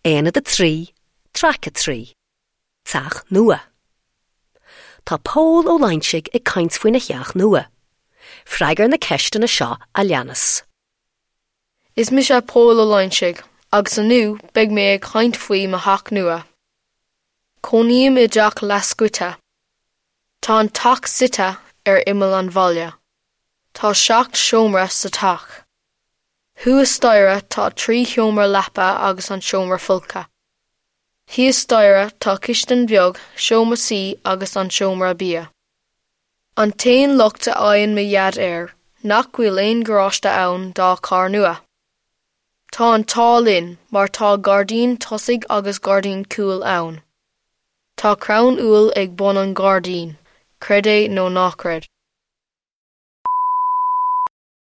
Aonad 3, Traic 3, Teach Nua. Tá Pól Ó Loingsigh ag caint faoina theach nua. Freagair na ceisteanna seo a leanas. Is mise Pól Ó Loingsigh agus inniu beidh mé ag caint faoi mo theach nua. Cónaím i dteach leathscoite. Tá an teach suite ar imeall an bhaile. Tá 7 seomra sa teach. Thuas staighre tá 3 sheomra leapa agus an seomra folctha. Thíos staighre tá cistin bheag, seomra suí agus an seomra bia. An t-aon locht a fhaigheann mo dhaid air nach bhfuil aon gharáiste ann dá charr nua. Tá an t-ádh linn mar tá gairdín tosaigh agus gairdín cúil ann. Tá crann úll ag bun an ghairdín, creid é nó ná creid.